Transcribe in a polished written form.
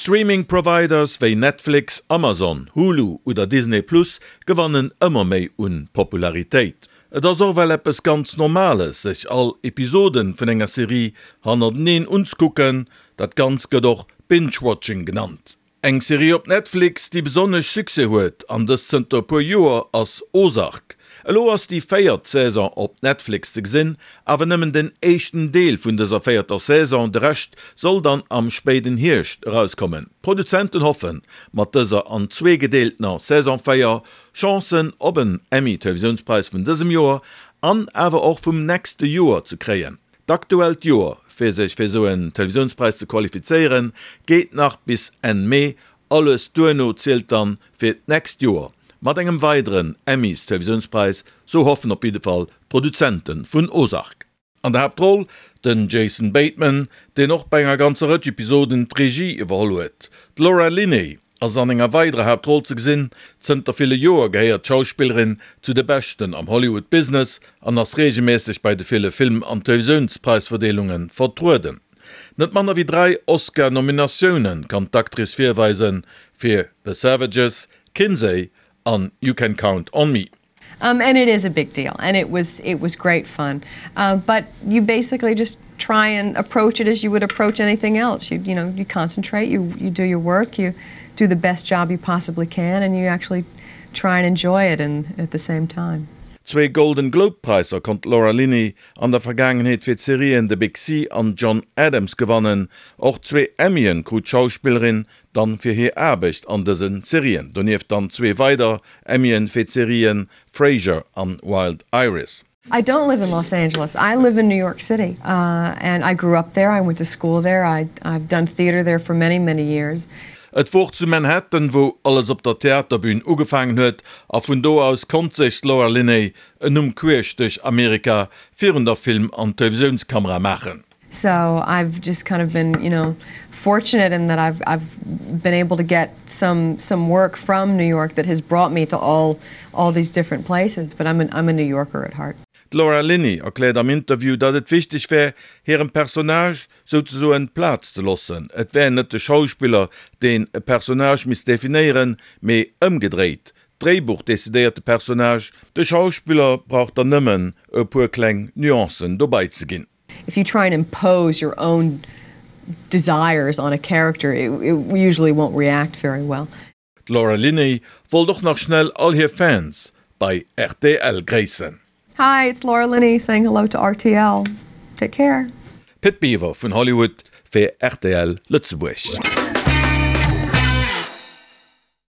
Streaming Providers wéi Netflix, Amazon, Hulu oder Disney Plus gewannen ëmmer méi un Popularitéit. Et ass och well eppes ganz Normales sech all Episoden vun enger Serie hannerteneen unzkucken, dat Ganzt gëtt och Binge-Watching genannt. Eng Serie op Netflix, déi besonnesch Succès huet, an dëst zënter e puer Joer, ass Ozark. Elo ass déi véiert Saison op Netflix ze gesinn, awer nëmmen den éischten Deel vun dëser véierter Saison, de Rescht soll dann am spéiden Hierscht erauskommen. D'Produzenten hoffen, mat dëser an zwee gedeeltener Saison 4 Chancen op en Emmy-Televisiounspräis vun dësem Joer an awer och vum nächste Joer ze kréien. D'aktuellt Joer, fir sech fir esou en Televisiounspräis ze qualifizéieren, geet nach bis Enn Mee. Alles duerno zielt dann fir d'nächst Joer mat engem weideren Emmys-Televisiounspräis, sou hoffen op jidde Fall d'Produzente vun Ozark. An der Haaptroll den Jason Bateman, deen och bei enger ganzer Rëtsch Episoden d'Regie iwwerholl huet. D'Laura Linney ass an enger weiderer Haaptroll ze gesinn. Zënter ville Joer gehéiert d'Schauspillerin zu de Beschten am Hollywood-Business an ass reegelméisseg bei de ville Film an Televisiounspraisverdeelunge vertrueden. Net manner wéi 3 Oscar-Nominatioune kann d'Actrice virweisen, fir The Savages, Kinsey an You Can Count on Me. Um, and it is a big deal and it was it was great fun. Uh, but you basically just try and approach it as you would approach anything else. You, you know, you concentrate, you, you do your work, you do the best job you possibly can, and you actually try and enjoy it and at the same time. Zwee Golden Globe Präisser konnt d'Laura Linney an der Vergaangenheet fir d'Serien The Big Sea an John Adams gewannen. Och zwee Emmyen krut d'Schauspillerin dann fir hir Aarbecht an dësen Serien. Donieft dann zwee weider Emmyen fir d'Serien Frasier an Wild Iris. I don't live in Los Angeles. I live in New York City uh, and I grew up there. I went to school there. I, I've done theater there for many, many years. Et wor zu Manhattan, wou alles op der Theaterbün ugefaangen huet, a vun do aus konnt sech d'Laura Linney en Numm queesch duerch Amerika virun der Film an Televisiounskamera maachen. So I've just kind of been, you know, fortunate in that I've, I've been able to get some, some work from New York that has brought me to all, all these different places, but I'm, an, I'm a New Yorker at heart. D'Laura Linney erkläert am Interview, datt et wichteg wär, hirem Personnage souzesoen Plaz ze loossen. Et wär net de Schauspiller, deen e Personnage misst definéieren, mee ëmgedréit, D'Dréibuch decidéiert de Personnage, de Schauspiller brauch dann nëmmen e puer kleng Nuancen dobei ze ginn. If you try and impose your own desires on a character, it, it usually won't react very well. D'Laura Linney wollt och nach schnell all hir Fans bei rtl gréissen. Hi, it's Laura Linney saying hello to rtl. Take care. Pit Biwer vun Hollywood fir rtl Lëtzebuerg.